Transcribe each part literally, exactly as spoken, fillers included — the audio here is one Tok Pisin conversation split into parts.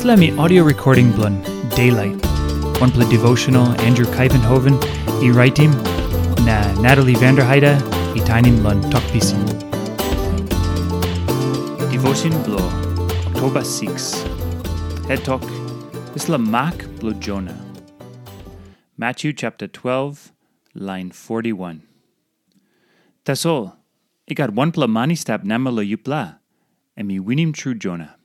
Dispela em i audio recording bilong Daylight, wanpela devotional Andrew Kaivenhoven i raitim, na Natalie Vanderheide i tainim long Tok Pisin. Devotion bilong Oktoba six. Het tok, dispela mak bilong Jona. Matthew chapter twelve, line forty-one. Tasol, i gat wanpela man i stap namel long yupela, em i winim tru Jona.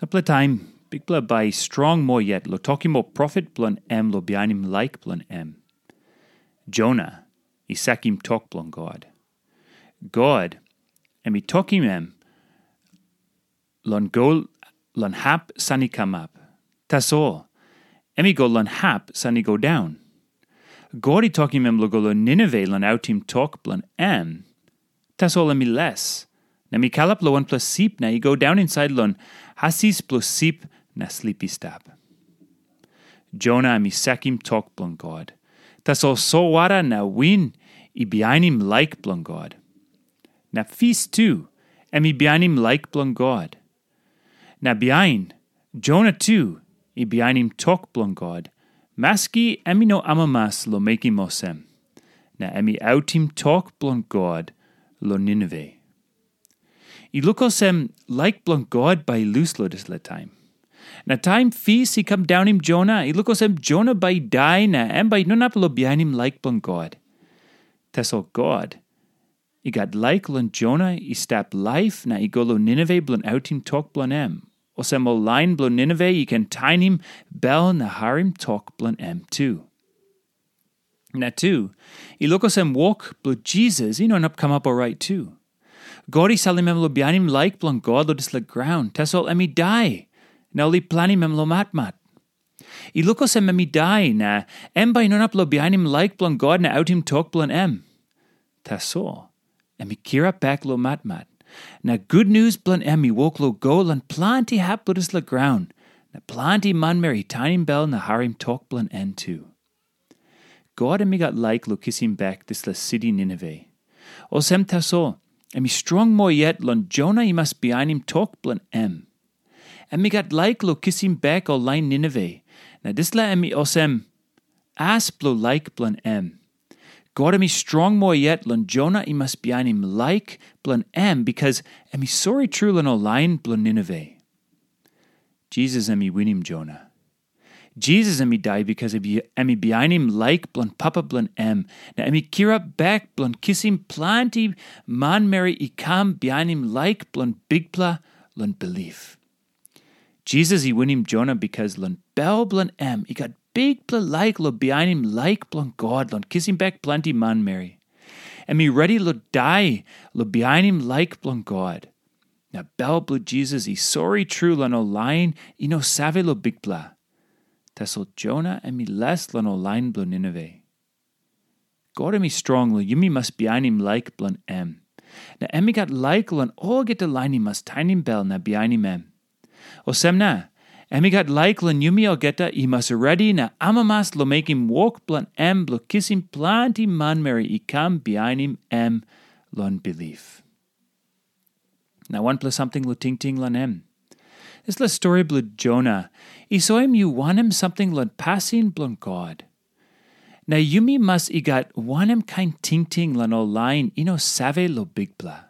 Sampela taim, Bikpela bai i strong moa yet long tokim ol profet bilong em long bihainim laik bilong em. Jona i sakim tok bilong God. God, em i tokim em long go long hap san i kamap. Tasol, em i go long hap san i go daun. God i tokim em long go long Ninive long autim tok bilong em. Tasol em i les, na em i kalap long wanpela sip na i go daun insait long hasis bilong sip na slip i stap. Jona em i sakim tok bilong God. Tasol solwara na win i bihainim laik bilong God. Na fis tu, em i bihainim laik bilong God. Na bihain, Jona tu i bihainim tok bilong God, maski em i no amamas long mekim olsem. Na em i autim tok bilong God long Ninive. I luk olsem laik bilong God bai i lus long dispela taim. Na taim fis i kam daunim Jona, i luk olsem Jona bai i dai na em bai i no inap long bihainim laik bilong God. Tasol God i gat laik long Jona i stap laip na i go long Ninive bilong autim tok bilong em, olsem ol lain bilong Ninive i ken tainim bel na harim tok bilong em tu. Na tu, i luk olsem wok bilong Jisas i no inap kamap orait tu. God i salim em long bihainim laik bilong God long dispela graun, tasol em i dai, na ol i planim em long matmat. I luk olsem em i dai, na em bai i no inap long bihainim laik bilong God na autim tok bilong em. Tasol, em i kirap bek long matmat, na gutnius bilong em i wok long go long planti hap bilong dispela graun, na planti manmeri i tainim bel na harim tok bilong en tu. God em i gat laik long kisim bek dispela siti Ninive. Olsem tasol, em i strong moa yet long Jona i mas bihainim tok bilong em. Em i gat laik long kisim bek ol lain Ninive, na dispela em i olsem as bilong laik bilong em. God em i strong moa yet long Jona i mas bihainim laik bilong em, bikas em i sori tru long ol lain bilong Ninive. Jisas em i winim Jona. Jisas em i dai bikas em i bihainim laik bilong Papa bilong em, na em i kirap bek bilong kisim planti manmeri i kam bihainim laik bilong Bikpela long bilip. Jisas i winim Jona bikas long bel bilong em i gat bikpela laik long bihainim laik bilong God long kisim bek planti manmeri. Em i redi long dai long bihainim laik bilong God. Na bel bilong Jisas i sori tru long ol lain i no save long Bikpela. Tasol Jona em i les long ol lain bilong Ninive. God em i strong long yumi mas bihainim laik bilong em. Na em i gat laik long olgeta lain i mas tainim bel na bihainim em. Olsem na, em i gat laik long yumi olgeta i mas redi na amamas long mekim wok bilong em bilong kisim planti manmeri i kam bihainim em long bilip. Na wanpela samting long tingting long em. Dispela stori bilong Jona i soim yu wanem samting long pasin bilong God. Na yumi mas i gat wanem kain tingting long ol lain i no save long Bikpela.